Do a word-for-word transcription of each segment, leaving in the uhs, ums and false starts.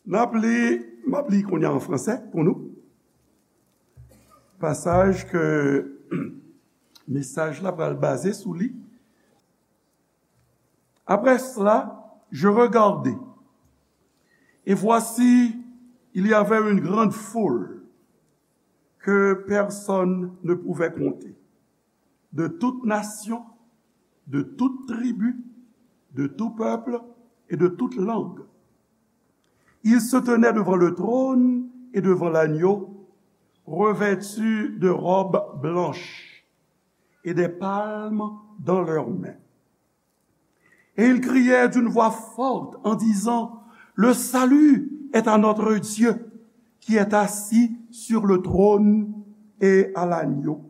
N ap li, m ap li kounye a an fransè pou nou. Pasaj ke mesaj la pral baze sou li. Après cela, je regardai, et voici, il y avait une grande foule que personne ne pouvait compter, de toute nation, de toute tribu, de tout peuple et de toute langue. Ils se tenaient devant le trône et devant l'agneau, revêtus de robes blanches et des palmes dans leurs mains. Et ils criaient d'une voix forte en disant, le salut est à notre Dieu qui est assis sur le trône et à l'agneau.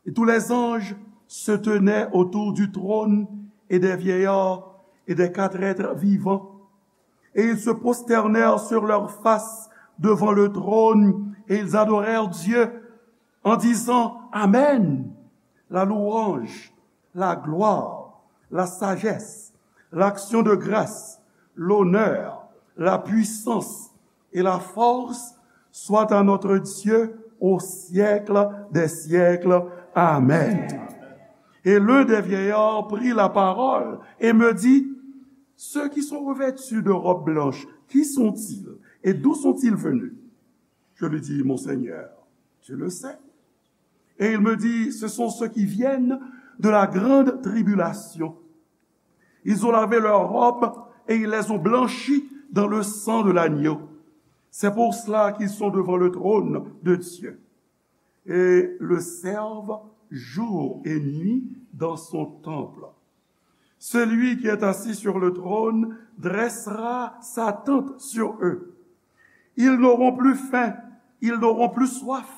Et tous les anges se tenaient autour du trône et des vieillards et des quatre êtres vivants. Et ils se prosternèrent sur leurs faces devant le trône et ils adorèrent Dieu en disant, Amen. La louange, la gloire, la sagesse, l'action de grâce, l'honneur, la puissance et la force soit à notre Dieu au siècle des siècles. Amen. Et l'un des vieillards prit la parole et me dit, ceux qui sont revêtus de robes blanches, qui sont-ils et d'où sont-ils venus? Je lui dis, mon Seigneur, tu le sais. Et il me dit, ce sont ceux qui viennent de la grande tribulation. Ils ont lavé leurs robes et ils les ont blanchies dans le sang de l'agneau. C'est pour cela qu'ils sont devant le trône de Dieu. Et le servent jour et nuit dans son temple. Celui qui est assis sur le trône dressera sa tente sur eux. Ils n'auront plus faim, ils n'auront plus soif,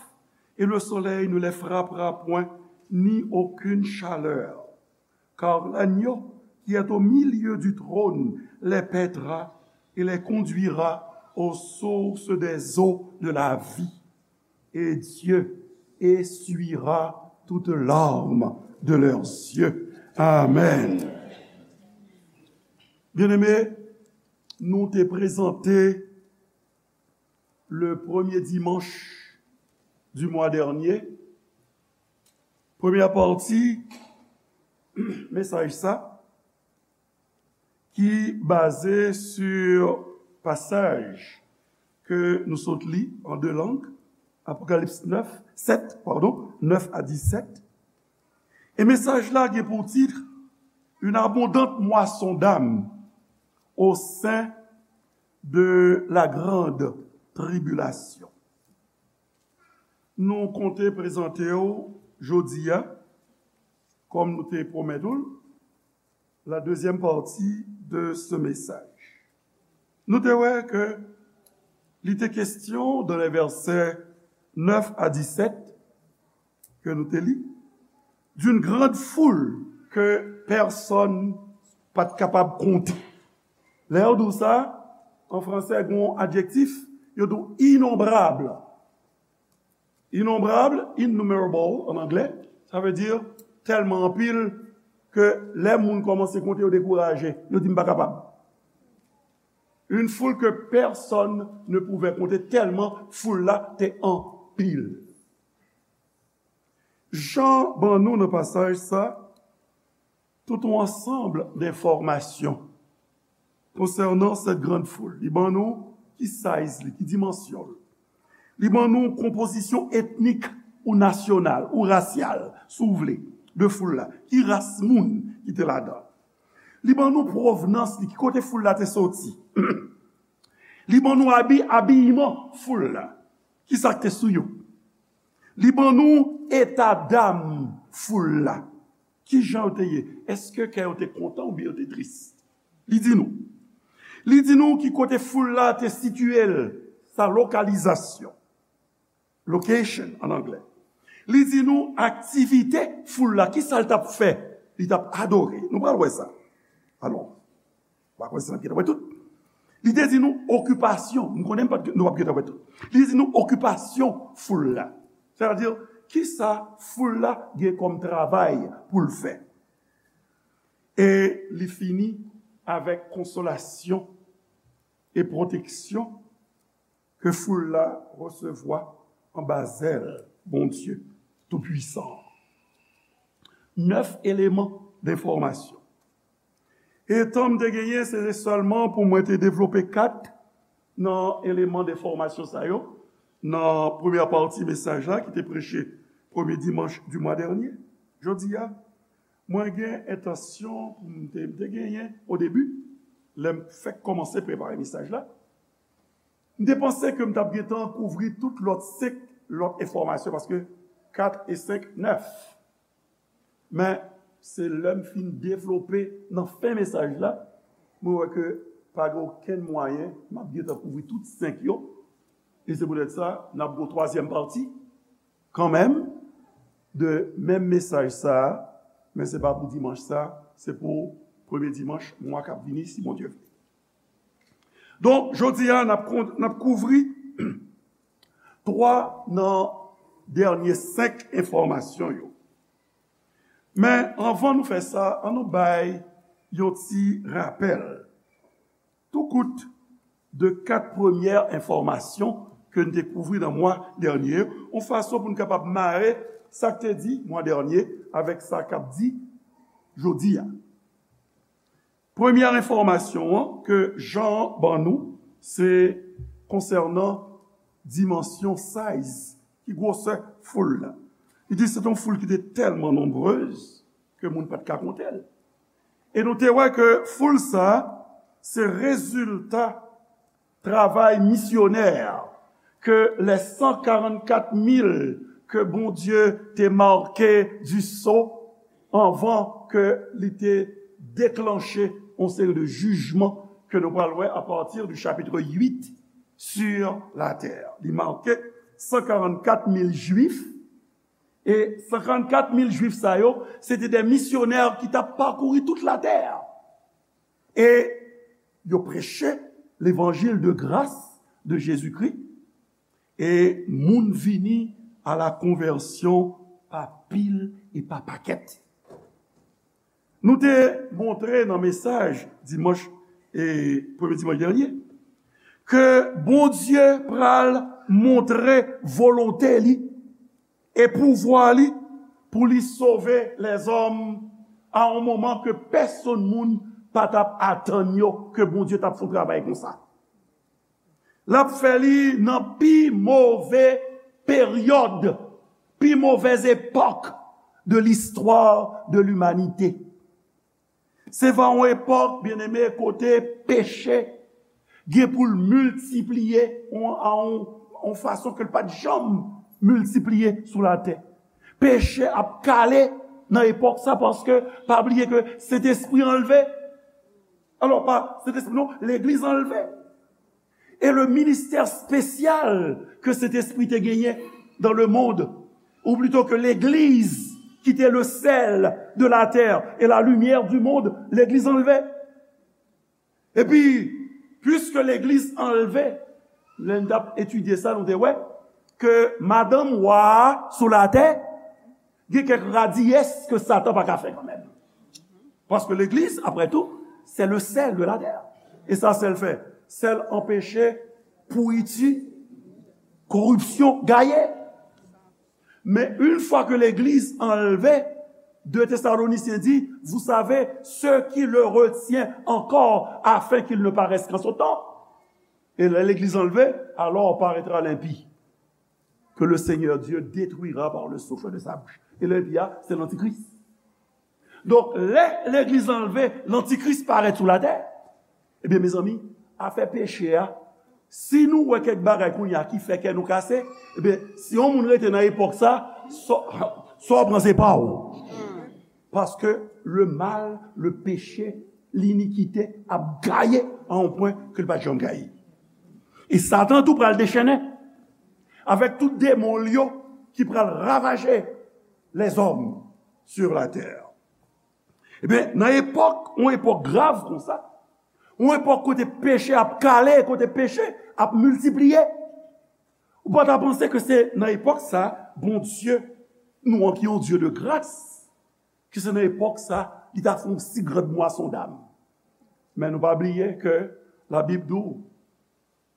et le soleil ne les frappera point, ni aucune chaleur. Car l'agneau qui est au milieu du trône les paîtra et les conduira aux sources des eaux de la vie. Et Dieu essuiera toute larme de leurs yeux. Amen. Byeneme, nou te prezante le premye dimanch du mwa dènye, premyè pati mesaj sa, ki baze sou pasaj ke nou sot li an de lang, Apokalips nèf, sèt, padon, nèf a disèt. E mesaj la gen pou tit, Une abondante moisson d'âmes au sein de la grande tribulation. Nou konte prezante w jodi a, kòm nou te pwomèt ou l, la deuxième partie de ce message. Nou te wè ke li te kesyon dans les versets neuf à dix-sept ke nou te li, d'une grande foule que personne pa t kapab konte. Lè yo di w sa, an fransè, gen yon adjektif, yo di w inonbrab. Inonbrab, innumerable an anglè, sa vle di tèlman anpil ke lè moun kòmanse konte, yo dekouraje, yo di, "M pa kapab." Une foule que personne ne pouvait compter, tèlman foul la te anpil. Jan ban nou nan pasaj sa, tout yon ansanm de enfòmasyon konsènan cette grande foule. Li ban nou ki size li, ki dimansyon l. Li ban nou konpozisyon etnik ou nasyonal ou rasyal, si w vle, de foul la. Ki ras moun ki te ladan? Li ban nou pwovnans li, ki kote foul la te soti. Li ban nou abi, abiman foul la. Ki sa k te sou yo? Li ban nou eta dam foul la. Ki jan yo te ye? Èske kè yo te kontan oubyen yo te tris? Li di nou. Li di nou ki kote foul la te sitiye l, sa lokalizasyon. Location an anglè. Li di nou aktivite foul la, ki sa l t ap fè? Li t ap adore. Nou pral wè sa. Alò, pa kwè se n ap gentan wè tout. Li te di nou okipasyon. M konnen m pa t, nou p ap gentan wè tout. Li di nou okipasyon foul la. Sètadi, ki sa foul la gen kòm travay pou l fè? E li fini avèk konsolasyon e pwoteksyon ke foul la resevwa anba zèl Bondye Toupwisan an. Nèf eleman d enfòmasyon. E tan m te genyen, se te sèlman pou mwen te devlope kat nan eleman d enfòmasyon sa yo nan premyè pati mesaj la ki te preche premye dimanch di mwa dènye. Jodi a, mwen gen entansyon pou m te, m te genyen o debi, lè m fèk kòmanse prepare mesaj la, m te panse ke m t ap gentan kouvri tout lòt senk lòt enfòmasyon, paske kat e senk, nèf. Men, se lè m fin devlope nan fen mesaj la, mwen wè ke pa gen okenn mwayen m ap gentan kouvri tout senk yo. E se poutèt sa, n ap gen yon twazyèm pati, kanmenm, de menm mesaj sa a, men se pa pou dimanch sa, se pou premye dimanch mwa k ap vini, si Bondye vle. Donk, jodi a, n ap kon-, n ap kouvri twa nan dènye senk enfòmasyon yo. Men, anvan nou fè sa, ann nou bay yon ti rapèl. Tou kout de kat premyè enfòmasyon ke n te kouvri nan mwa dènye yo, yon fason pou n kapab mare sa k te di mwa dènye avèk sa k ap di jodi a. Premyè enfòmasyon an ke Jan ban nou, se konsènan dimansyon, size, ki gwosè foul la. Li di se te yon foul ki te tèlman nonbrez ke moun pa t ka konte l. E nou te wè ke foul sa a, se rezilta travay misyonè ke les cent quarante-quatre mille ke Bondye te make di so anvan ke li te deklanche yon seri de jijman ke nou pral wè apati di chapitre huit sur la terre. Li make cent quarante-quatre mille Jwif, e cent quarante-quatre mille Jwif sa yo, se te de misyonè ki t ap pakouri tout latè. E yo preche levanjil de gras de Jezikri, e moun vini a la konvèsyon pa pil e pa pakèt. Nou te montre nan mesaj dimanch, e premye dimanch dènye, ke Bondye pral montre volonte li e pouvwa li pou li sove lèzòm a yon moman ke pèsonn moun pa t ap atann yo ke Bondye t ap fè yon travay konsa. L ap fè li nan pi move peryòd, pi movèz epòk de listwa de limanite. Se va yon epòk, byeneme, kote peche gen pou l miltipliye yon, a yon, yon fason ke l pa t janm miltipliye sou latè. Peche ap kale nan epòk sa, paske pa bliye ke Sentespri anlve. Alò, pa Sentespri non, legliz anlve. E le ministè espesyal ke Sentespri te genyen dans le monde, ou plito ke legliz ki te le sèl de la tè e la limyè di mond, legliz anlve. Epi, piske legliz anlve, lè n t ap etidye sa, nou te wè ke madanm wa a sou latè, gen kèk radiyès ke Satan pa ka fè kanmenm. Paske legliz, apre tou, se le sèl de la tè. E sa sèl fè, sèl anpeche pouriti, koripsyon, gaye. Men yon fwa ke legliz anlve, de Tesalonisyen di, vous savez, ce qui le retient encore afin qu'il ne paraisse qu'en son temps. Et lè legliz anlve, alors paraîtra l'impie, que le Seigneur Dieu détruira par le souffle de sa bouche. E lè enpi a, se lantikris. Donk, lè legliz anlve, lantikris parèt sou latè, ebyen, mezanmi, afè peche a, si nou wè kèk bagay kounye a ki fè kè nou kase, ebyen, si yon moun rete nan epòk sa, sa, sa w pran se pa w. Paske le mal, le péché, linikite ap gaye a yon pwen ke l pa t janm gaye. E Satan tou pral dechennen avèk tout demon l yo ki pral ravaje lèzòm sur la tè. Ebyen, nan epòk, yon epòk grav konsa, yon epòk kote peche ap kale, kote peche ap miltipliye, ou pa ta panse ke se nan epòk sa, Bondye nou an ki yon Dye de gras, ke se nan epòk sa, li ta fè yon si grand mwason dam. Men nou pa bliye ke Labib di w,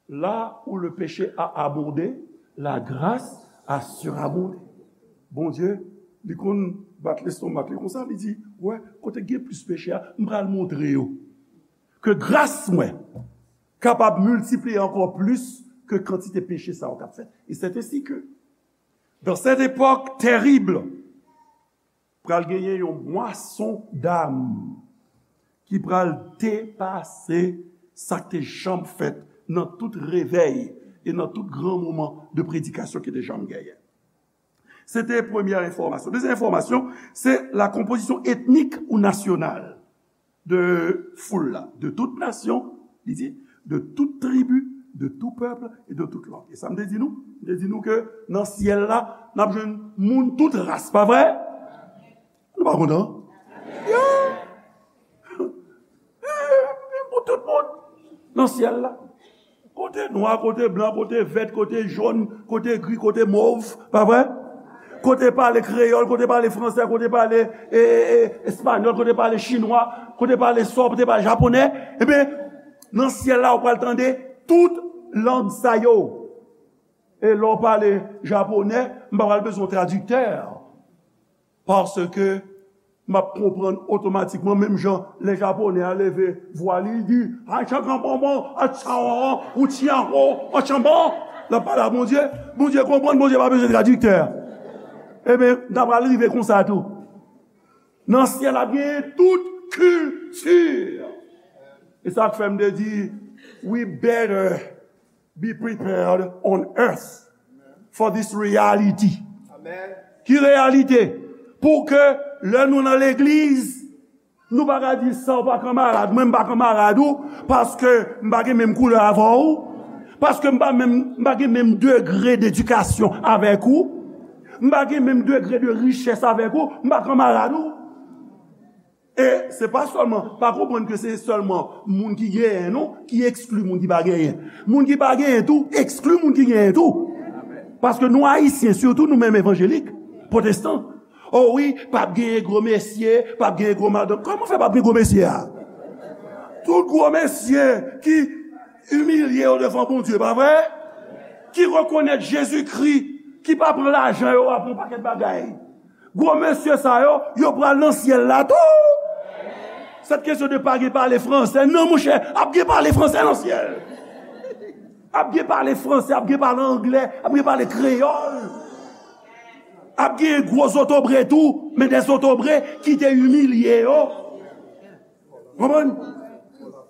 Là où le péché a abondé, la grâce a surabondé. Bondye, li konn bat lestomak li konsa, li di, wè, kote gen plis peche a, m pral montre yo ke gras mwen kapab miltipliye ankò plis ke kantite peche sa yo k ap fèt. Et c'est ainsi que, dans cette époque terrible, pral genyen yon mwason dam ki pral depase sa k te janm fèt nan tout revèy e nan tout gran moman de predikasyon ki te janm genyen. Se te premyè enfòmasyon. Dezyèm enfòmasyon, se la konpozisyon etnik ou nasyonal de foul la, de tout nasyon, li di, de tout tribi, de tout pèp e de tout lang. E sa m te di nou? M te di nou ke nan syèl la, n ap jwenn moun tout ras, pa vre? Nou pa kontan? Yeah! Pou tout moun nan syèl la. Kote nwa, kote blan, kote vèt, kote jòn, kote gri, kote mov, pa vre? Kote pale kreyòl, kote pale fransè, kote pale e, e, e, espanyòl, kote pale chinwa, kote pale sòb, kote pale japonè. Ebyen, nan syèl la, ou pral tande tout lang sa yo. E lè w pale japonè, m pa pral bezwen tradiktè. Paske m ap konprann otomatikman, menm jan lè japonè a leve vwa li, li di, "Achankanponpon, achanwon, ouchianwo, achanbon." L ap pale a Bondye. Bondye konprann, Bondye pa bezwen tradiktè. Ebyen, n ta pral rive konsa tou. Nan syèl ap genyen tout kilti. E sa k fè m te di, we better be prepared on earth for this reality. Ki reyalite? Pou ke lè nou nan legliz, nou pa ka di sa w pa kanmarad mwen, m pa kanmarad ou, paske m pa gen menm koulè avè w, paske m pa menm, m pa gen menm degre dedikasyon avèk ou, m pa gen menm degre de richès avèk ou, m pa kanmarad ou. E se pa sèlman, pa konprann ke se sèlman moun ki genyen non, ki ekskli moun ki pa genyen. Moun ki pa genyen tou, ekskli moun ki genyen tou. Paske nou Ayisyen, sitou nou menm evanjelik, pwotestan. O wi, p ap genyen gwo mesye, p ap genyen gwo madanm. Kòman fè p ap gen gwo mesye a? Tout gwo mesye ki imilye yo devan Bondye, pa vre? Ki rekonèt Jezikri, ki pa pran lajan yo a pou yon pakèt bagay. Gwo mesye sa yo, yo pral nan syèl la tou. Sèt kesyon de pa gen pale fransè, non, monchè, ap gen pale fransè nan syèl. Ap gen pale fransè, ap gen pale anglè, ap gen pale kreyòl. Ap gen gwo zotobre tou, men de zotobre ki te imilye yo. Konprann?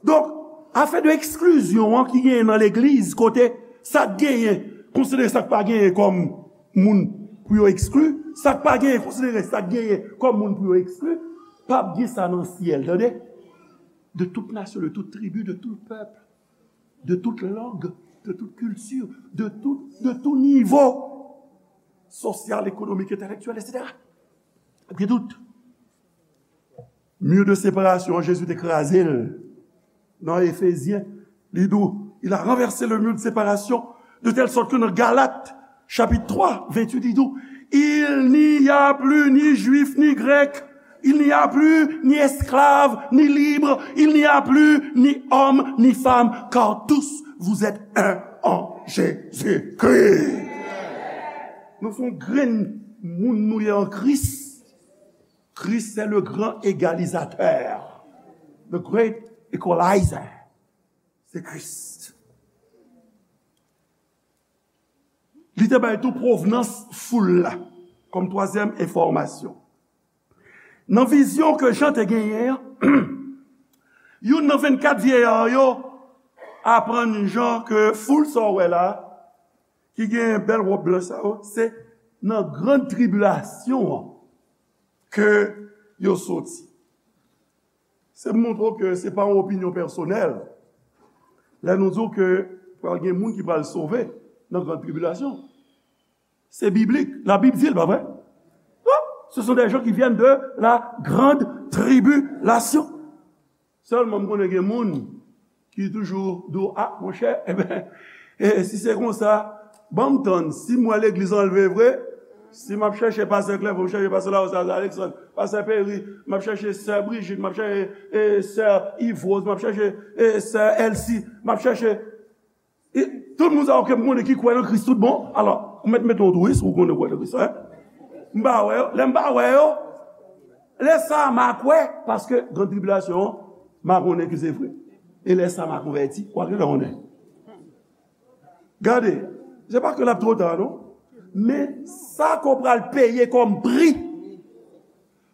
Donk, afè de eksklizyon an ki genyen nan legliz, kote sa k genyen konsidere sa k pa genyen kòm moun pou yo ekskli, sa k pa genyen konsidere sa k genyen kòm moun pou yo ekskli, p ap gen sa nan syèl, tande. De tout nasyon, de tout tribi, de tout pèp, de tout lang, de tout kilti, de tout, de tout nivo sosyal, ekonomik, entèlektyèl, etsetera. P ap gen tout. Mur de séparation, Jezi te kraze l nan Efezyen. Li di w, il a renversé le mur de séparation, de telle sorte que nan Galat, chapit twa, venntuit, li di w, il n'y a plus ni juif ni grec, il n'y a plus ni esclave ni libre, il n'y a plus ni homme ni femme, car tous vous êtes un en Jésus-Christ. Nou se yon grenn moun nou ye an Kris. Christ, c'est le grand égalisateur, the great equalizer. Se Kris. Li te bay tou pwovnans foul la, kòm twazyèm enfòmasyon. Nan vizyon ke Jan te genyen an, youn nan vennkat vyeya yo aprann Jan ke foul sa w wè la, ki gen bèl wòb blanch sa yo, se nan grann tribilasyon an ke yo soti. Se pou montre w ke se pa yon opinyon pèsonèl. Lè nou di w ke pral gen moun ki pral sove nan grann tribilasyon, se biblik. Labib di l, pa vre? Wi, ce sont des gens qui viennent de la grande tribulation. Sèlman, m konnen gen moun ki toujou di w, a, monchè, enben, e, si se konsa, ban m tann, si m wè legliz anlve vre, si m ap chèche pastè Clerfond, m chèche pastè Larose Alexandre, pastè Perry, m ap chèche sè Brigitte, m ap chèche, e, sè Yvrose, m ap chèche, e, sè Elsie, m ap chèche, e, Tout moun sa yo ke m konnen ki kwè nan Kris tout bon. Alò, ou mèt mete yon twist, ou konnen kwè nan Kris, en? M pa wè yo. Lè m pa wè yo, lè sa a m a kwè, paske gran tribilasyon an, m a konnen ke se vre. E lè sa a m a konvèti, ou a gentan konnen. Gade, se pa ke l ap twò ta, non. Men sa ke w pral peye kòm pri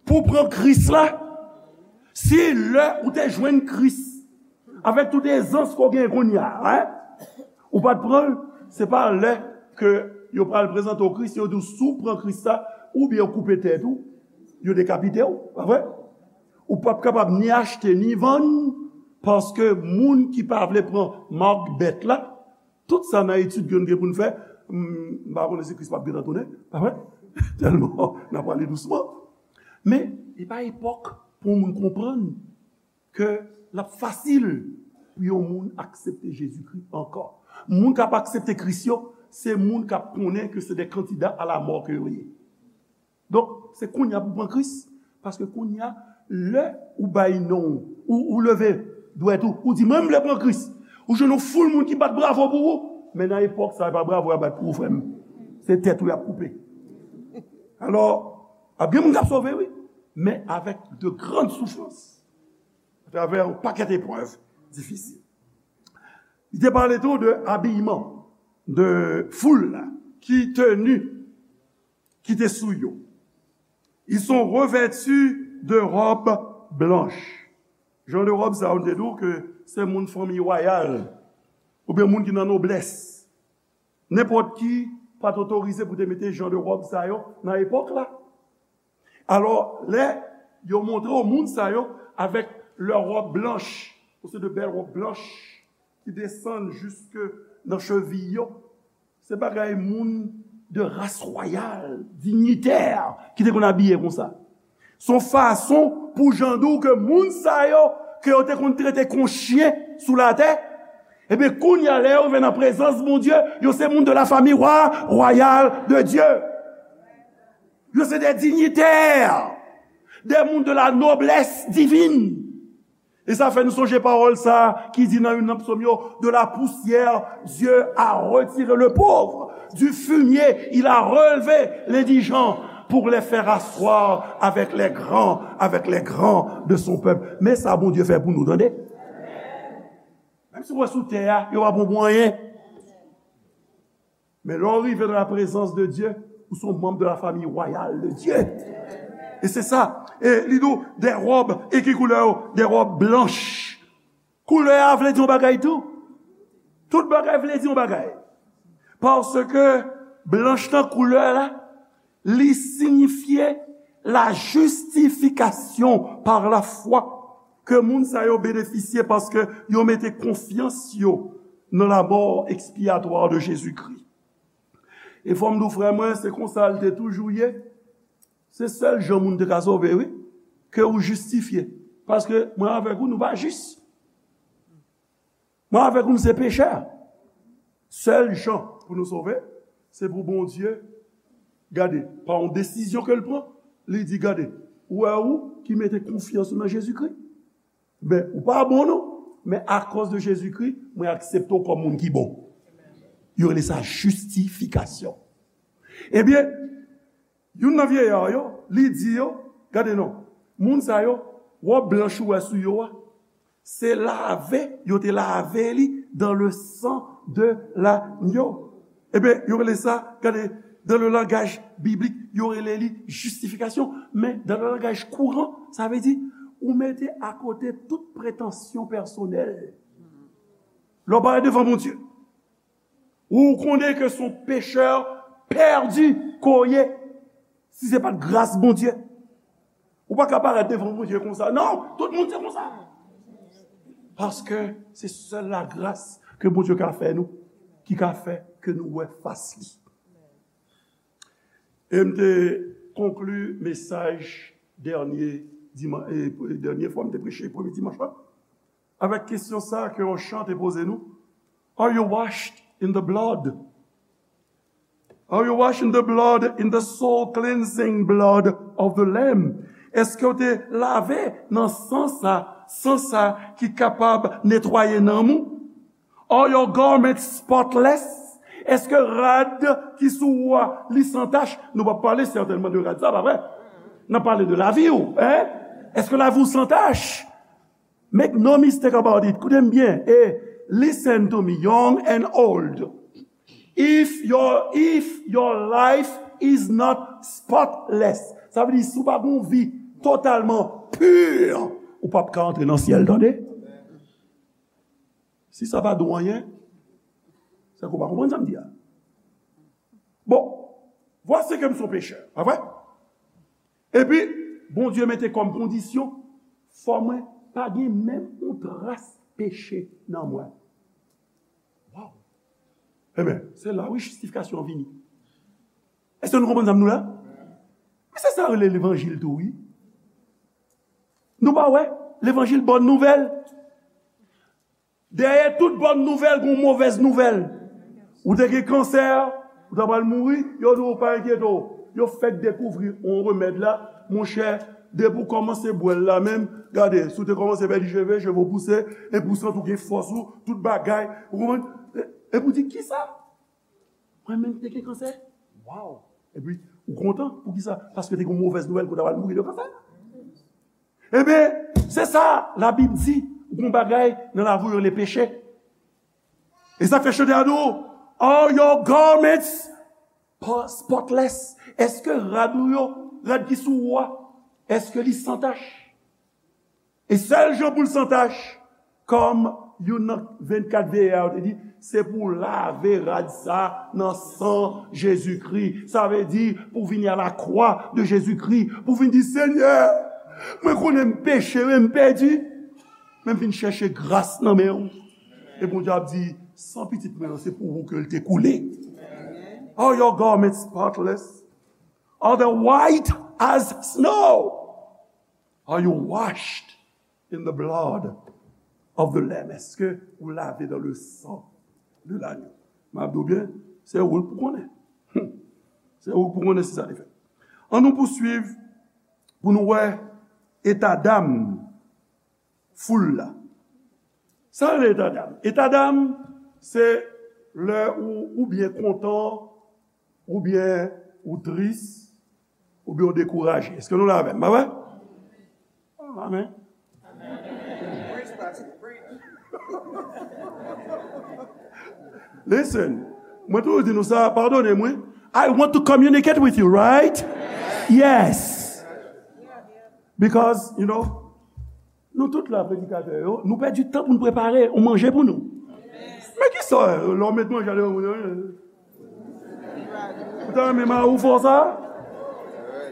pou w pran Kris la, si lè ou te jwenn Kris, avèk tout ezans ke w genyen kounye a, en, ou pa t pran l, se pa lè ke yo pral prezante w Kris, yo di w si w pran Kris la, oubyen yo koupe tèt ou, yo dekapite w, pa vre? Ou p ap kapab ni achte ni vann, paske moun ki pa vle pran mak bèt la, tout sa nan etid ke nou gen pou n fè, m, m pa konnen si Kris p ap gentan tounen, pa vre? Tèlman n ap ale dousman. Men, li pa epòk pou yon moun konprann ke l ap fasil pou yon moun aksepte Jezikri ankò. Moun k ap aksepte Kris yo, se moun k ap konnen ke se de kandida a lamò ke yo ye. Donk, se kounye a pou w pran Kris, paske kounye a, lè ou bay non w, ou, ou leve dwèt ou, ou di, "Mwen, m vle pran Kris." Ou jwenn yon foul moun ki bat bravo pou ou, men nan epòk sa, e pa bravo y ap bat pou ou, frè m. Se tèt ou y ap koupe. Alò, ap gen moun k ap sove, wi, men avèk de grann soufrans, atravè yon pakèt eprèv difisil. Li te pale tou de abiyman, de foul la, ki teni ki te sou yo. Ils sont revêtus de robes blanches. Jan de wòb sa yo, nou te di w ke se moun fanmi wayal, oubyen moun ki nan noblès. Nenpòt ki pa t otorize pou te mete jan de wòb sa yo nan epòk la. Alò, lè yo montre w moun sa yo avèk lè wòb blanch, se de bèl wòb blanch ki desann jiske nan cheviy yo, se bagay moun de ras wayal, dinyitè, ki te konn abiye konsa. Se yon fason pou jan di w ke moun sa yo, ke yo te konn trete kon chen sou latè, ebyen, kounye a, lè yo rive nan prezans Bondye, yo se moun de la famille wa-, royale de Dieu. Yo se de dinyitè, de moun de la noblesse divine. E sa fè nou sonje pawòl sa a ki di nan youn nan psòm yo, "De la poussière, Dieu a retiré le pauvre. Du fumier, il a relevé l'indigent pour les faire asseoir avec les grands, avec les grands de son peuple." Men sa Bondye fè pou nou, tande. Menm si w wè sou tè a, yo pa bon pou anyen. Men lè w rive nan la prezans de Dye, ou se yon manm de la famille royale de Dieu. E se sa. E li di w, de wòb, e ki koulè yo? De wòb blanch. Koulè a vle di yon bagay tou. Tout bagay vle di yon bagay. Paske blanch nan koulè la, li siyifye la justification par la foi ke moun sa yo benefisye paske yo mete konfyans yo nan la mort expiatoire de Jésus-Christ. E fò m di w, frè mwen, se konsa l te toujou ye. Se sèl jan moun te ka sove, wi, ke ou jistifye. Paske mwen avèk ou, nou pa jis. Mwen avèk ou, nou se pechè. Sèl jan pou nou sove, se pou Bondye, gade, pa yon desizyon ke l pran, li di, "Gade, ou wè ou ki mete konfyans ou nan Jezikri. Men, ou pa bon non, men akòz de Jezikri, mwen aksepte w kòm moun ki bon." Yo rele sa jistifikasyon. Ebyen, youn nan vyeya yo, li di yo, gade non, moun sa yo, wòb blanch ou wè sou yo a, se lave, yo te lave li dans le sang de l'agneau. Ebyen, yo rele sa, gade, dans le langage biblique, yo rele li jistifikasyon. Men, dans le langage courant, sa vle di, ou mete akote tout pretansyon pèsonèl. Lè w parèt devan Bondye, ou konnen ke se yon pechè pèdi ke w ye, si se pa t gras Bondye. Ou pa ka parèt devan Bondye konsa. Non, tout moun se konsa. Paske se sèl lagras ke Bondye ka fè nou, ki ka fè ke nou wè fas li. E m te konkli mesaj dènye diman-, e, dènye fwa m te preche, premye dimanch la, avèk kesyon sa ke yon chan te poze nou, "Are you washed in the blood? Are you washed in the blood, in the soul cleansing blood of the Lamb?" Èske w te lave nan san sa, san sa ki kapab netwaye nanm ou? Are your garments spotless? Èske rad ki sou ou a, li san tach? Nou p ap pale sètènman de rad sa, pa vre? N ap pale de lavi w, en? Èske lavi w san tach? Make no mistake about it. Koute m byen. E listen to me, young and old. If your, if your life is not spotless, sa vle di si w pa gen yon vi totalman pur, ou p ap ka antre nan syèl, tande. Si sa pa di w anyen, se ke w pa konprann sa m di a. Bon, voici que m se yon pechè, pa vre? Epi, Bondye mete kòm kondisyon, fò mwen pa gen menm yon tras peche nan mwen. Waw! Ebyen, se la wi jistifikasyon an vini. Èske nou konprann sa m di la? Men se sa yo rele levanjil tou, wi. Nou pa wè? Levanjil bòn nouvèl. Dèyè tout bòn nouvèl, gon movèz nouvèl. Ou te gen kansè, ou ta pral mouri, yo di w pa enkyete w. Yo fèk dekouvri yon remèd la, monchè, depi w kòmanse bwè l la menm, gade, si w te kòmanse pèdi cheve, cheve w pouse, epi w santi w gen fòs ou, tout bagay, ou konprann? E, epi w di, kisa? Mwen menm ki te gen kansè? Waw! Epi, ou kontan? Poukisa? Paske te gen yon movèz nouvèl ke w ta pral mouri de kansè. Ebyen, se sa Labib di, ou gen yon bagay nan lavi w yo rele peche. E sa k fè chante a di w, are your garments po- spotless? Èske rad ou yo, rad ki sou ou a, èske li san tach? E sèl jan pou l san tach, kòm youn nan vennkat veye a yo te di, se pou w lave rad sa nan san Jezikri. Sa vle di, pou w vini a la kwa de Jezikri, pou w vin di, Senyè, mwen konnen m peche, wi, m pèdi, men m vin chèche gras nan men w. E Bondye ap di, san pitit mwen an, se pou ou ke l te koule. Are your garments spotless? Are they white as snow? Are you washed in the blood of the Lamb? Èske ou lave dans le sang de l'agneau? M ap di w byen, se ou pou konnen. Hmm. Se ou pou konnen si sa te fèt. Ann nou pouswiv pou nou wè eta dam foul la. Sa rele eta dam? Eta dam, se lè ou, ou byen kontan, oubyen ou tris, oubyen ou dekouraje. Èske nou la avè m? Pa vre? Amen. Listen, mwen toujou di nou sa, padone m, wi. I want to communicate with you, right? Yes. Because, you know, nou tout la, predikatè yo, nou pèdi tan pou nou prepare yon manje pou nou. Men kisa, lè w met manje a devan moun yo, ou ta renmen mari w fè w sa?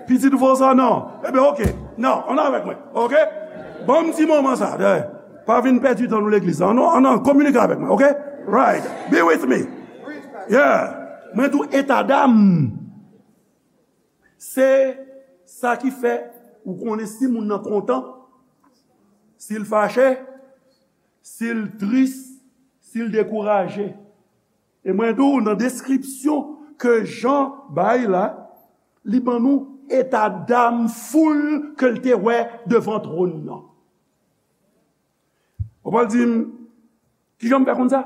Pitit ou fè w sa? Non. Ebyen, oke. Non, ann avèk mwen. Oke? Ban m ti moman sa. Pa vin pèdi tan nou legliz la. Ann, ann, ann kominike avèk mwen, oke? Right. Be with me. Yeah. Mwen tou eta dam. Se sa ki fè ou konnen si moun nan kontan, si l fache, si l tris, si l dekouraje. E mwen di w, nan deskripsyon ke Jan bay la, li ban nou eta dam foul ke l te wè devan twòn nan. Ou pral di m, kijan m fè konn sa?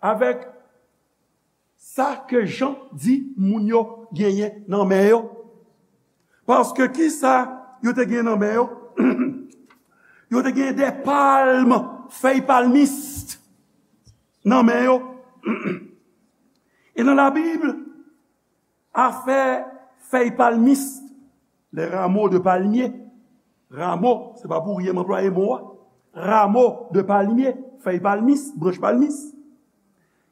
Avèk sa ke Jan di moun yo genyen nan men yo. Paske kisa yo te genyen nan men yo? Yo te genyen de palm, fèy palmis nan men yo. E nan Labib, afè fèy palmis, les rameaux de palmier, rameau, se pa pou ryen m anplwaye mo a, rameau de palmier, fèy palmis, branch palmis,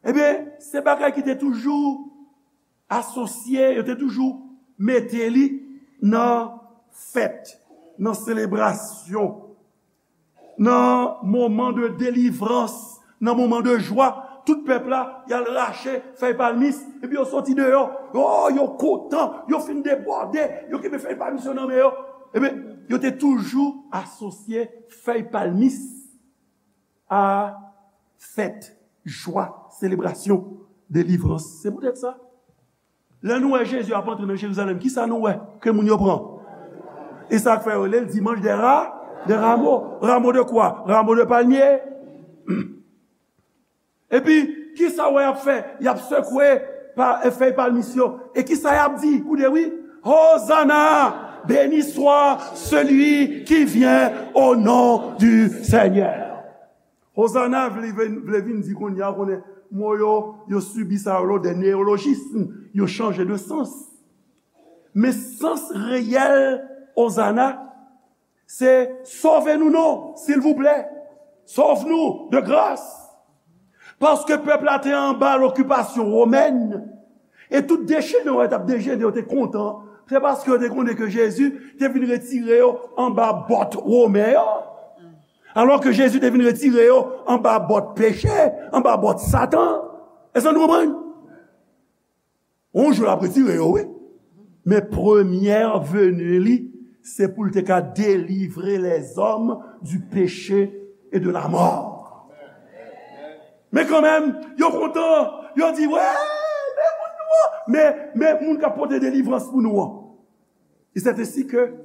ebyen, se bagay ki te toujou asosye, yo te toujou mete li nan fèt, nan selebrasyon, nan moman de delivrans, nan moman de jwa, tout pèp la, y al rache fèy palmis, epi yo soti deyò. Oh, yo kontan, yo fin debòde, yo kenbe fèy palmis yo nan men yo. Ebyen, yo te toujou asosye fèy palmis a fèt, jwa, selebrasyon, delivrans. Se poutèt sa, lè nou wè Jezi ap antre nan Jerizalèm, kisa nou wè ke moun yo pran? E sa k fè yo rele l Dimanche des Ra-, des Rameaux. Rameaux de quoi? Rameaux de palmier. Epi, kisa w wè y ap fè? Y ap sekwe pa, e, fèy palmis yo. E kisa y ap di? Koute, wi. Hosanna! Béni soit celui qui vient au nom du Seigneur. Hosanna vle, vle, vle vin di kounye a, konnen mo yo, yo sibi sa yo, de neyolojism, yo chanje de sans. Men sans reyèl Hosanna, se sove nou non, silvouplè. Sauve-nous de grâce. Paske pèp la te anba lokipasyon womèn, e tout dechene yo t ap dechene, yo te kontan. Se paske yo te konnen ke Jezi te vin retire yo anba bòt women yo. Alò ke Jezi te vin retire yo anba bòt peche, anba bòt Satan. Èske nou konprann? Yon jou l ap retire yo, wi. Men premyè veni li, se pou l te ka delivre lèzòm du péché et de la mort. Men kanmenm, yo kontan, yo di, wè, men moun nou an, men, men moun k ap pote delivrans pou nou an. E c'est ainsi que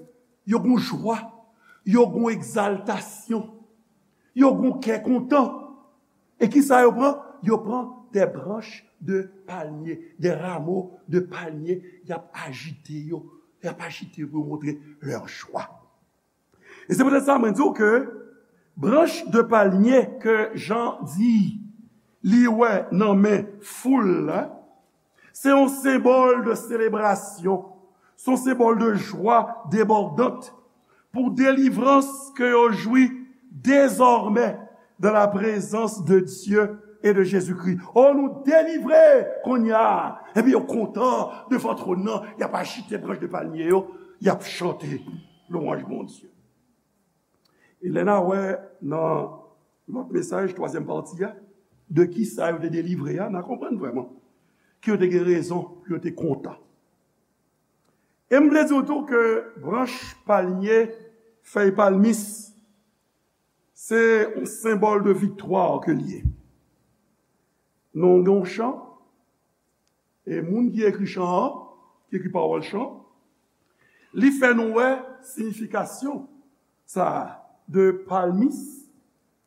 yo gon jwa, yo gon egzaltasyon, yo gon kè kontan. E kisa yo pran? Yo pran des branches de palmier, des rameaux de palmier, y ap ajite yo, y ap ajite yo pou yo montre leur joie. E se poutèt sa mwen di w ke branch de palmier ke Jan di li wè nan men foul la, se yon senbòl de selebrasyon, se yon senbòl de jwa debòdant pou delivrans ke yo jwi dezòmè dans la présence de Dieu et de Jésus-Christ. O, nou delivre kounye a. Epi yo kontan devan twòn nan, y ap ajite branch de palmier yo, y ap chante lwanj Bondye. E lè n a wè nan lòt mesaj, twazyèm pati a, de kisa yo te delivre a, n a konprann vrèman ke yo te gen rezon pou yo te kontan. E m vle di w tou ke branch palmye, fèy palmis, se yon senbòl de viktwa ke l ye. Nou gen yon chan, e moun ki ekri chan an, ki ekri pawòl chan, li fè nou wè siyifikasyon sa a de palmis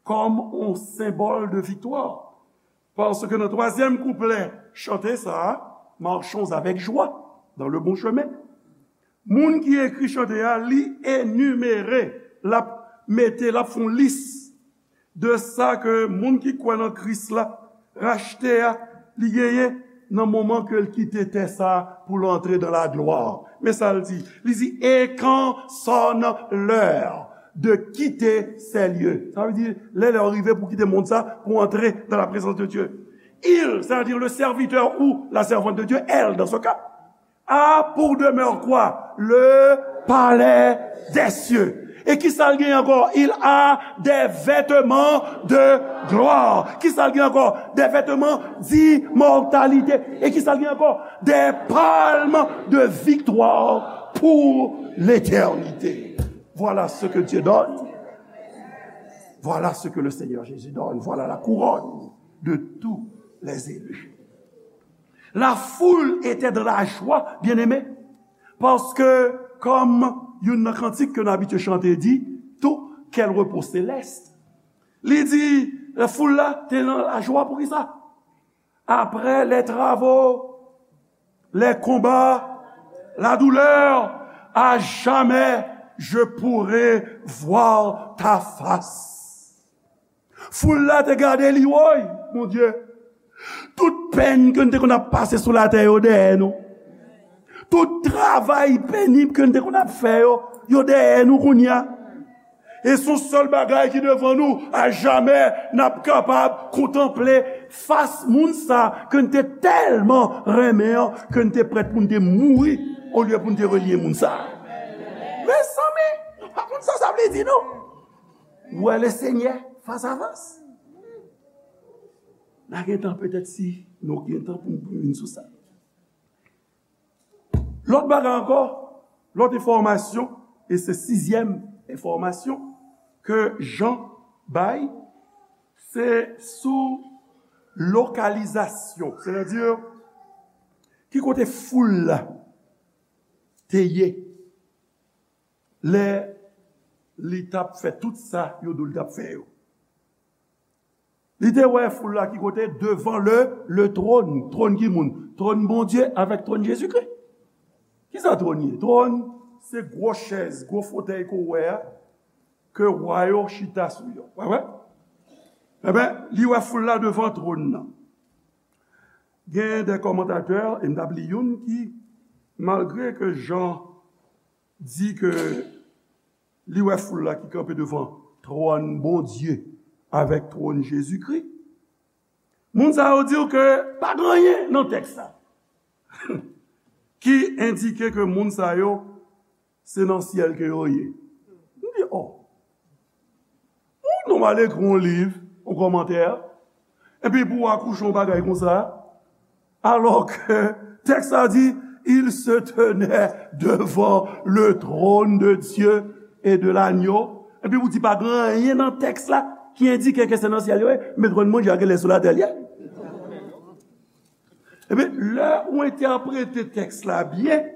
kòm yon senbòl de viktwa. Paske nan twazyèm kouplè chante sa a, Marchons avec joie dans le bon chemin. Moun ki ekri chante a, li enimere, l ap mete, l ap fè yon lis de sa ke moun ki kwè nan Kris la, rachte a, li genyen nan moman ke l kite tè sa a pou l antre dans la gloire. Men sa l di, li di, et quand sonne l'heure de quitter ces lieux. Sa vle di, lè, lè a rive pou kite mond sa, pou antre dans la présence de Dieu. Il, c'est-à-dire le serviteur ou la servante de Dieu, elle, dans ce cas, a pour demeure quoi? Le palais des cieux. E kisa l gen ankò? Il a des vêtements de gloire. Kisa l gen ankò? Des vêtements d'immortalité. E kisa l gen ankò? Des palmes de victoire pour l'éternité. Voilà ce que Dieu donne. Voilà ce que le Seigneur Jésus donne. Voilà la couronne de tous les élus. La foule était dans la joie, bien-aimés, paske, kòm youn nan kantik ke nou abitye chante di, tou, quel repos céleste. Li di, foul la te nan lajwa. Poukisa? Après les travaux, les combats, la douleur, à jamais je pourrai voir ta face. Foul la te gade li, woy, Bondye. Tout pèn ke n te konn ap pase sou latè yo dèyè nou. Tout travay penib ke n te konn ap fè yo, yo dèyè nou kounye a. E se yon sèl bagay ki devan nou, a jamè n ap kapab kontanple fas moun sa ke n te tèlman renmen an, ke n te prèt pou n te mouri olye pou n te renye moun sa. Mezanmi, nou pa konn sa sa vle di, non. Wè le Senyè fas a fas. N a gen tan petèt si nou gen tan pou n vin sou sa. Lòt bagay ankò, lòt enfòmasyon, e se sizyèm enfòmasyon ke Jan bay, se sou lokalizasyon, sètadi ki kote foul la te ye lè li t ap fè tout sa yo di w li t ap fè yo. Li te wè foul la ki kote? Devan le, le trône. Twòn ki moun? Twòn Bondye avèk twòn Jezikri. Kisa twòn ye? Twòn, se gwo chèz, gwo fotèy ke w wè a, ke wa yo chita sou yo. Wè, wè? Enben, li wè foul la devan twòn nan. Gen de kòmantatè, e m t ap li youn ki, malgre ke Jan di ke li wè foul la ki kanpe devan twòn Bondye avèk twòn Jezikri, moun sa yo di w ke pa gen anyen nan tèks la ki endike ke moun sa yo se nan syèl ke yo ye. M di, oh, ou nonm al ekri yon liv, yon kòmantè, epi pou w akouche yon bagay konsa, alò ke tèks la di, il se tenait devant le trône de Dieu et de l'agneau. Epi ou di pa gen anyen nan tèks la ki endike ke se nan syèl yo ye, men twòn Bondye a genlè sou latè l ye. Ebyen, lè ou entèprete tèks la byen,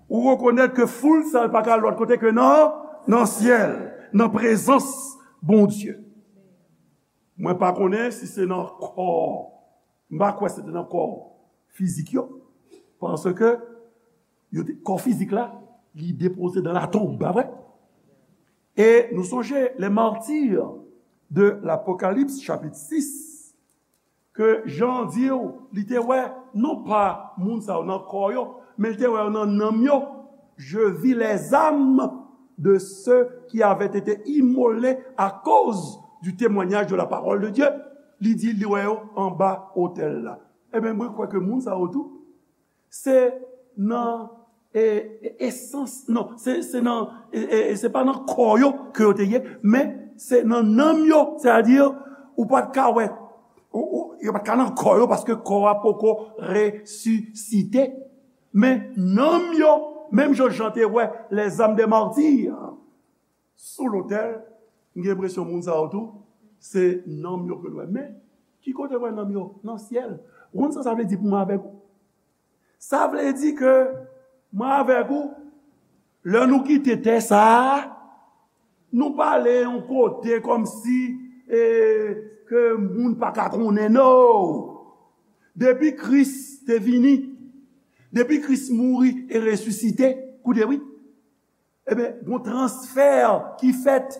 ou rekonèt ke foul sa a pa ka al lòt kote ke nan, nan syèl, nan prezans Bondye. Mwen pa konnen si se nan kò, m pa kwè se te nan kò fizik yo, paske yo te, kò fizik la, li depoze dans la tombe, pa vre? E nou sonje, les martyrs de l'Apocalypse, chapit sis, ke Jan di w, li te wè, non pa moun sa yo nan kò yo, men li te wè yo nan nanm yo. Je vis les âmes de ceux qui avaient été immolés à cause du témoignage de la parole de Dieu. Li di, li wè yo anba otèl la. Ebyen, mwen kwè ke moun sa yo tou, se nan, e, e, esans, non, se, se nan, e, e, e se pa nan kò yo ke yo te ye, men se nan nanm yo, sètadi, ou pa t ka wè, ou, ou, yo pa t ka nan kò yo, paske kò a poko resisite. Men nanm yo, menm jan Jan te wè les âmes des martyrs sou lotèl, m gen enpresyon moun sa yo tou, se nanm yo ke l wè. Men, ki kote l wè nanm yo? Nan syèl. Ou konn sa sa vle di pou mwen avèk ou? Sa vle di ke mwen avèk ou, lè nou kite tè sa a, nou pa ale yon kote kòmsi, e, ke moun pa ka konnen, no! Depi Kris te vini, depi Kris mouri e resisite, koute wi, ebyen, gon transfè ki fèt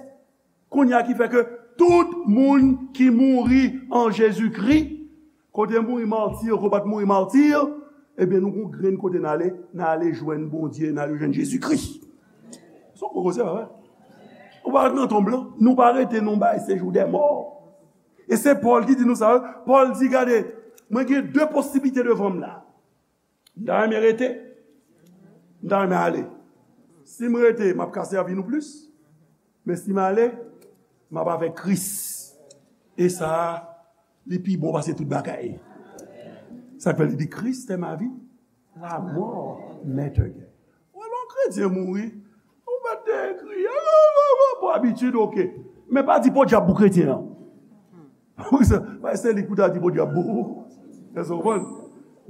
kounye a ki fè ke tout moun ki mouri an Jezikri, kote mouri mati, kote pa t mouri mati, ebyen, nou gon grenn kote n ale, n ale jwenn Bondye, n ale jwenn Jezikri. Se yon gwo koze, pa vre? Ou pa ret nan tonb lan, nou pa rete nan yon bay sejou dè mò. E se Pòl ki di nou sa, wi. Pòl di, gade, mwen gen de posiblite devan m la. M ta renmen rete. M ta renmen ale. Si m rete, m ap ka sèvi nou plis. Men si m ale, m ap avèk Kris. E sa a, li pi bon pase tout bagay. Sa k fè li di, Christ est ma vie, la mort m'est un gain. Ou wè lè yon kretyen mouri, ou mèt te kriye, pou abitid, oke. Men pa di podyab pou kretyen an. Wi, se, se li k pou ta di podyab pou ou. Èske w konprann?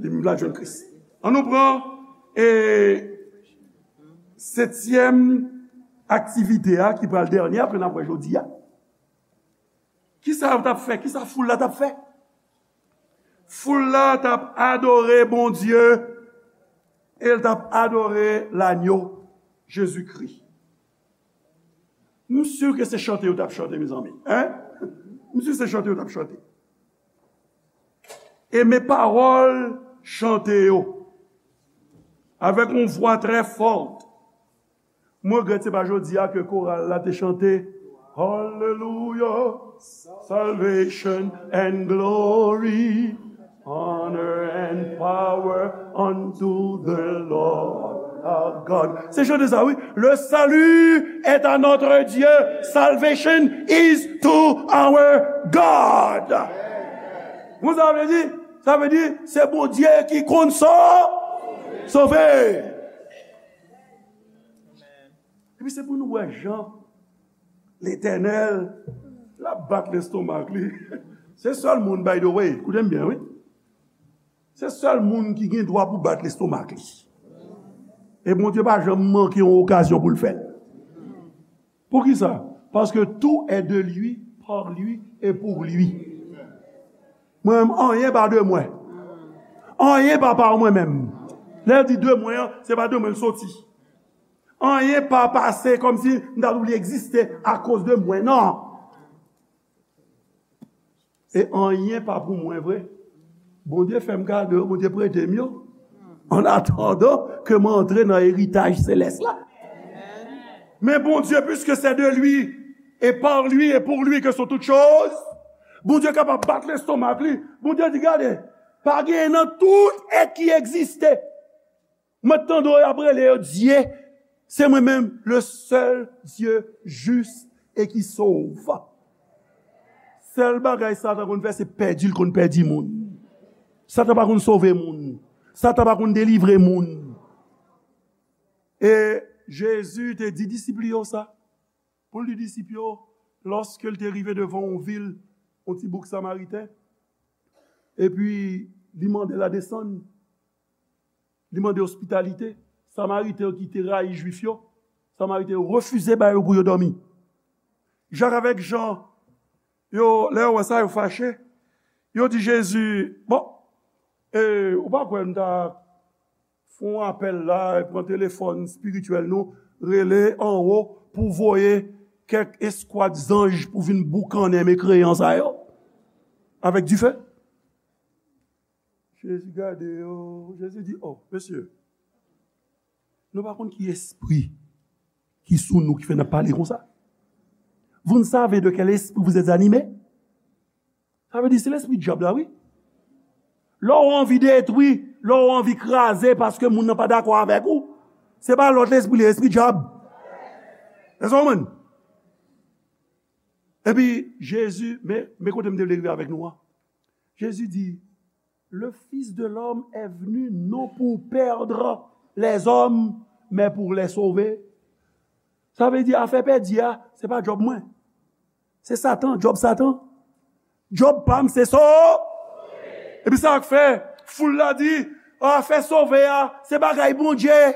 Li menm la jwenn Kris. An nou pran, e, setyèm aktivite a, ki pral dènye a, ke n ap wè jodi a. Kisa yo t ap fè? Kisa foul la t ap fè? Foul la t ap adore Bondye e l t ap adore Lanyo, Jezikri. M si ke se chante yo t ap chante, mezanmi. Hein? M si se chante yo t ap chante. E men pawòl chante yo, avèk yon vwa trè fò. Mwen regrèt se pa jodi a ke koral la te chante, Hallelujah, salvation and glory, honor and power unto the Lord our God. Se chante sa, wi. Le salut est à notre Dieu, salvation is to our God. Bon, sa vle di, sa vle di, se Bondye ki konn sa sove. Epi se pou nou wè jan Letènèl, l ap bat lestomak li. Se sèl moun, by the way, koute m byen, wi. Se sèl moun ki gen dwa pou bat lestomak li. E Bondye pa janm manke yon okazyon pou l fè l. Poukisa? Paske tout est de lui, par lui et pour lui. Mwen menm, anyen pa de mwen. Anyen pa pa mwen menm. Lè l di de mwen an, se pa de mwen l soti. Anyen pa pase kòmsi m ta dwe egziste akoz de mwen. Non. E anyen pa pou mwen vre. Bondye fè m kado yo, Bondye prete m yo. An atandan ke mwen antre nan eritaj selès la. Men Bondye, puisque c'est de lui, et par lui, et pour lui que sont toutes choses, Bondye kapab bat lestomak li. Bondye di, gade, pa gen nan tout èt ki egziste. Mwen tande yo ap rele yo Dye, se mwen menm, le seul Dieu juste et qui sauve. Sèl bagay Satan konn fè, se pèdi l konn pèdi moun. Satan pa konn sove moun. Satan pa konn delivre moun. E Jezi te di disip li yo sa. Pou l di disip yo, lòske l te rive devan yon vil, yon ti bouk Samariten, epi li mande l a desann, li mande ospitalite. Samariten yo ki te rayi Jwif yo, Samariten yo refize ba yo pou yo dòmi. Jak avèk Jan, yo, lè yo wè sa, yo fache. Yo di Jezi, bon, e, ou pa kwè nou ta fè yon apèl la, pran telefòn espirityèl nou, rele anwo pou voye kèk eskwad zanj pou vin boukannen mekreyan sa yo avèk dife. Jezi gade yo, Jezi di, oh, mesye, nou pa konn ki espri ki sou nou ki fè n ap pale konsa. Vous ne savez de quel esprit vous êtes animés? Sa vle di se lespri dyab la, wi. Lè w anvi detwi, lè w anvi kraze paske moun nan pa dakò avèk ou, se pa lòt lespri, li lespri dyab. Èske w konprann? Epi Jezi, men, men kote m te vle rive avèk nou an. Jezi di, le Fils de l'homme est venu non pour perdre les hommes, mais pour les sauver. Sa vle di afè pèdi a, se pa djòb mwen. Se Satan, djòb Satan. Djòb pa m, se so. Epi sa k fè, foul la di, afè sove a, se bagay Bondye.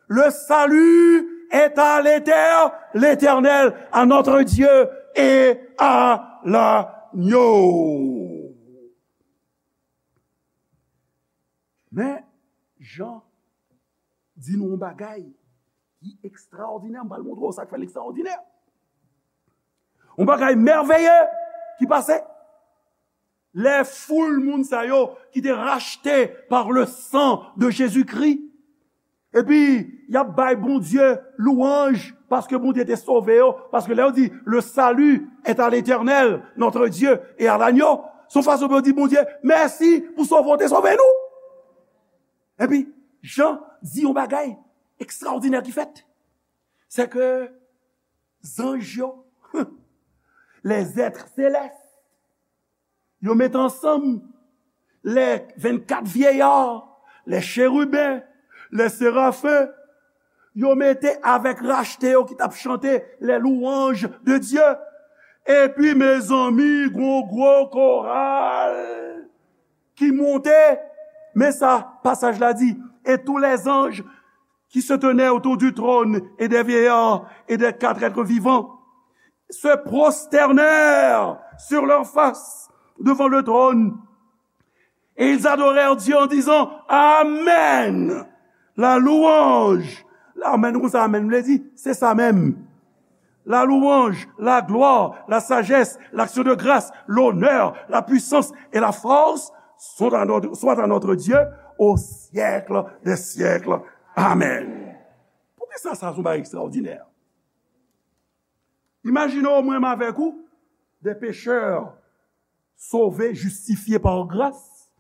Le salut est à l'Éter-, l'Éternel, à notre Dieu et à l'agneau. Men, Jan di nou yon bagay ki ekstraòdinè. M pral montre w sa k fè l ekstraòdinè. Yon bagay mèveye ki pase. Lè foul moun sa yo ki te rachte par le sang de Jésus-Christ, epi y ap bay Bondye lwanj paske Bondye te sove yo, paske lè yo di, le salut est à l'Éternel, notre Dieu, et à l'agneau, se yon fason pou yo di Bondye mèsi pou sove w te sove nou. Epi, Jan di yon bagay ekstraòdinè ki fèt. Se ke zanj yo, les êtres célestes, yo mete ansanm, les vingt-quatre vieillards, les chérubins, les séraphins, yo mete avèk rachte yo ki t ap chante les louanges de Dieu. Epi, mezanmi, gon gwo koral ki monte. Men sa pasaj la di, et tous les anges qui se tenaient autour du trône et des vieillards et des quatre êtres vivants se prosternèrent sur leur face devant le trône. Et ils adorèrent Dieu en disant, Amen. La louange. Amen, ou konn sa amen vle di? Se sa menm. La louange, la gloire, la sagesse, l'action de grâce, l'honneur, la puissance et la force sont à notre, soient à notre Dieu au siècle des siècles. Amen. Poukisa sa se yon bagay ekstraòdinè? Imajine w, mwen menm avèk ou, des pécheurs sauvés, justifiés par grâce.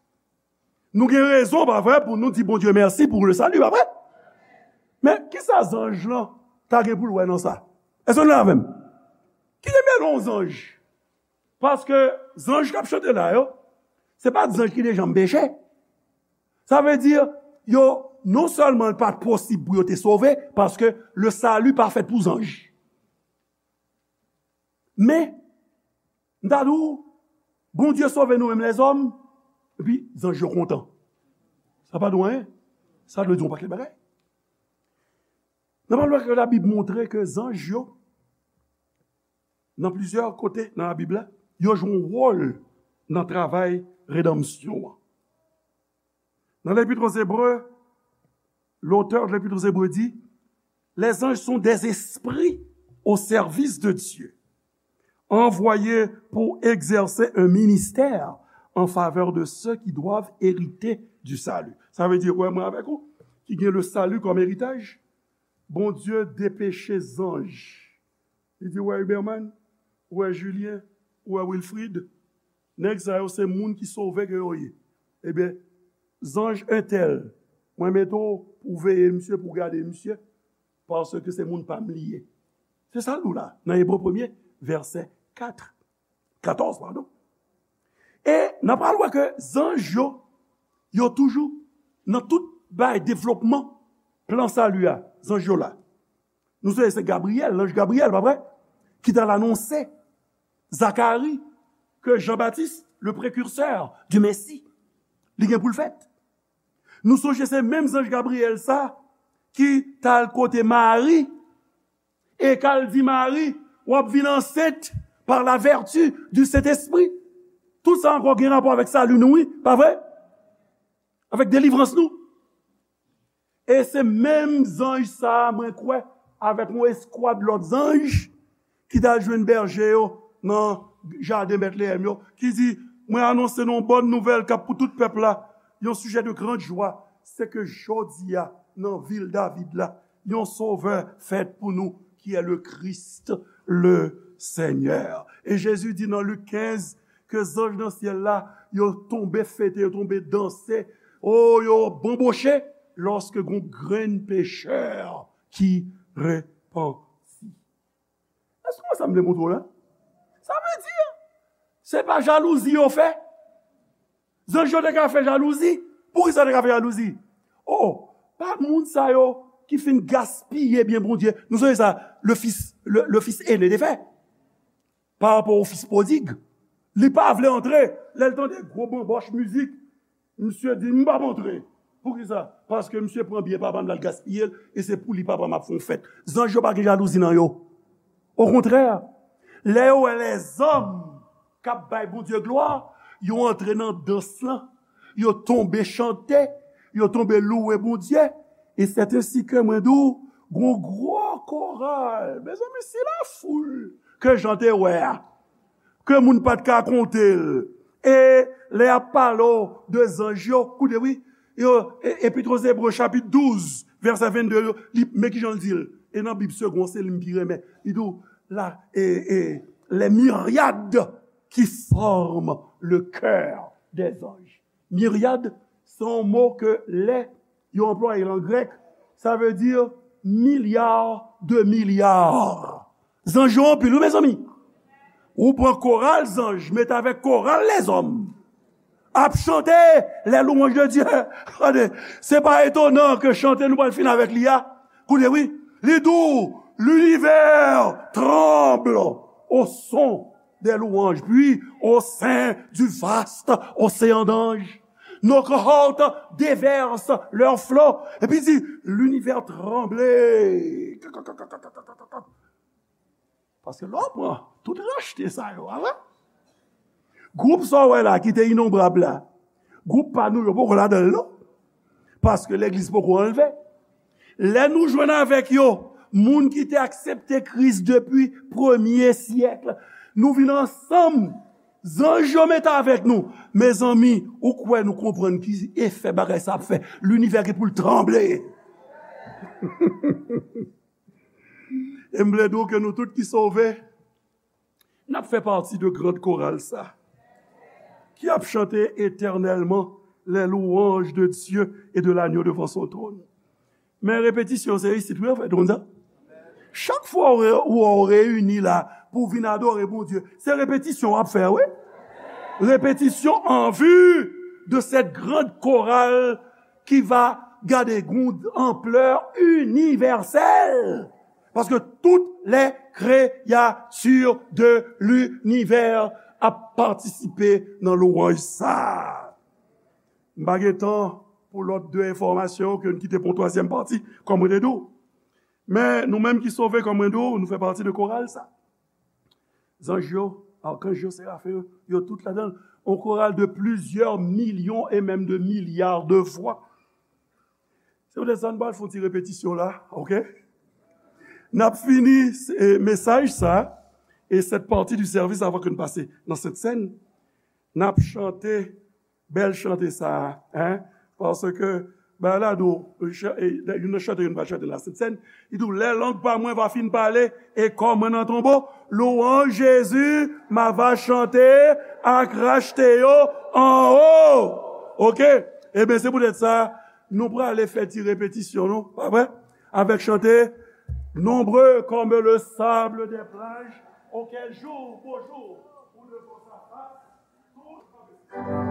Nou gen rezon, pa vre, pou nou di Bondye mèsi pou le salut, pa vre? Men, kisa zanj lan ta gen pou l wè nan sa? Èske nou la avè m? Ki te mele yon zanj? Paske zanj k ap chante la yo, se pa t zanj ki te janm peche. Sa vle di, yo, non sèlman l pa t posib pou yo te sove, paske le salut pa fèt pou zanj. Men, m ta di w, Bondye sove nou menm lèzòm, epi zanj yo kontan. Sa pa di w anyen. Sa dwe di w yon pakèt bagay. N ap wè ke Labib montre ke zanj yo, nan plizyè kote nan Labib la, yo jwe yon wòl nan travay redanmsyon an. Dans l'Épître aux Hébreux, l'auteur de l'Épître aux Hébreux dit, les anges sont des esprits au service de Dieu, envoyés pour exercer un ministère en faveur de ceux qui doivent hériter du salut. Sa vle di, wè mwen avèk ou, ki gen le salut comme héritage, Bondye depeche zanj. Li di, wè Huberman, wè Julien, wè Wilfrid, nèg sa yo se moun ki sove ke yo ye. Ebyen, zanj entèl, mwen mete w pou veye misye, pou gade misye, paske se moun pa m li ye. Se sa l di w la, nan Ebre premye, vèsè kat, katòz, padon. E n ap pral wè ke zanj yo, yo toujou nan tout bay devlopman plan sali a, zanj yo la. Nou sonje se Gabriyèl, lanj Gabriyèl, pa vre? Ki t al anonse Zakari ke Jan Batis, le precurseur du Messie, li gen pou l fèt. Nou sonje se menm zanj Gabriyèl sa ki t al kote Mari e k al di Mari, w ap vin ansent par la vertu du Saint-Esprit. Tout sa ankò gen rapò avèk sali nou, wi, pa vre? Avèk delivrans nou. E se menm zanj sa a, mwen kwè, avèk yon eskwad lòt zanj, ki t al jwenn bèje yo nan jaden Bètleyèm yo, ki di, mwen anonse nou yon bòn nouvèl k ap pou tout pèp la, yon sijè de grande joie, se ke jodi a, nan vil David la, yon sovè fèt pou nou, ki è le Christ, le Seigneur. E Jezi di nan Lik kenz, ke zanj nan syèl la, yo tonbe fete, yo tonbe danse, o, yo banboche, lòske gon grenn pechè ki repanti. Èske w wè sa m vle montre w la? Sa vle di, se pa jalouzi yo fè. Zanj yo te ka fè jalouzi. Poukisa yo te ka fè jalouzi? O, pa moun sa yo ki fin gaspiye byen Bondye. Nou sonje sa, le fils, le, le fils aîné te fè. Pa rapò o fis pwodig. Li pa vle antre. Lè l tande gwo banbòch mizik, misye di, m p ap antre. Poukisa? Paske misye pran byen papa m, l al gaspiye l, e se pou li papa m ap fè yon fèt. Zanj yo pa gen jalouzi nan yo. Okontrè, lè yo wè lèzòm k ap bay Bondye glwa, yo antre nan dans lan, yo tonbe chante, yo tonbe louwe Bondye. E sèten si ke mwen di w, gon gwo koral. Mezanmi, si lafoul ke Jan te wè a, ke moun pa t ka konte l. E lè y ap pale w de zanj yo, koute wi, yo, e, Epit o Zebre chapit douz, vèsè vennde, yo, li, men kijan l di l. E nan Bib Segond, se li m pi renmen. Li di w, la, e, e, les myriades qui forment le chœur des anges. Myriad, se yon mo ke lè yo anplwaye l an grèk, sa vle di milya de milya. Zanj yo anpil, wi, mezanmi. Ou pran koral zanj, mete avèk koral lèzòm. Ap chante les louanges de Dieu. Tande, se pa etonan ke chante nou pral fin avèk li a. Koute, wi. Li di w, l'univers tremble au son des louanges, puis au sein du vaste océan d'anges, nos cohortes déversent leurs flots. Epi di, l'univers tremble. Paske lè w pran tout rachte sa yo, a vre? Gwoup sa w wè la ki te inonbrab la, gwoup pa nou yo poko ladan l non. Paske legliz poko anlve. Lè nou jwenn avèk yo, moun ki te aksepte Kris depi premye syèk, nou vin ansanm, zanj yo mete avèk nou. Mezanmi, ou kwè nou konprann ki efè bagay sa ap fè? Linivè gen pou l tranble. E m vle di w ke nou tout ki sove, n ap fè pati de grand koral sa, ki ap chante etènèlman les louanges de Dieu et de l'agneau devant son trône. Men repetisyon se isit wi, anfèt, ou konn sa. Chak fwa ou re-, ou, ou reyini la pou w vin adore Bondye, se repetisyon w ap fè, wi. Repetisyon en vue de cette grande chorale qui va gade gon anplè inivèsèl. Paske toutes les créatures de l'univers ap patisipe nan lwanj sa. M pa gen tan pou lòt de enfòmasyon ke n kite pou yon twazyèm pati, kòm mwen te di w. Men nou menm ki sove, kòm mwen di w, nou fè pati de koral sa. Zanj yo, akanj yo, serafen yo, yo tout ladan l. On koral de plizyè milyon e menm de milya de vwa. Se poutèt sa n pral fè yon ti repetisyon la, oke? N ap fini eh, mesaj sa e cette partie du service avant que n pase nan Sent Sèn. N ap chante bèl chante sa a, hein? Paske, bagay la di w, youn nan chante yo n pral chante nan Sent Sèn, li di w, lè lang pa mwen va fin pale e kò mwen nan tonbo, louanj Jezi, m a va chante ak rachte yo anwo. Oke? Ebyen, se poutèt sa, nou prale fè ti repetisyon, nou, pa vre? Avèk chante, Nombreux comme le sable des plages, auquel jour pour jour ou devant sa face, tout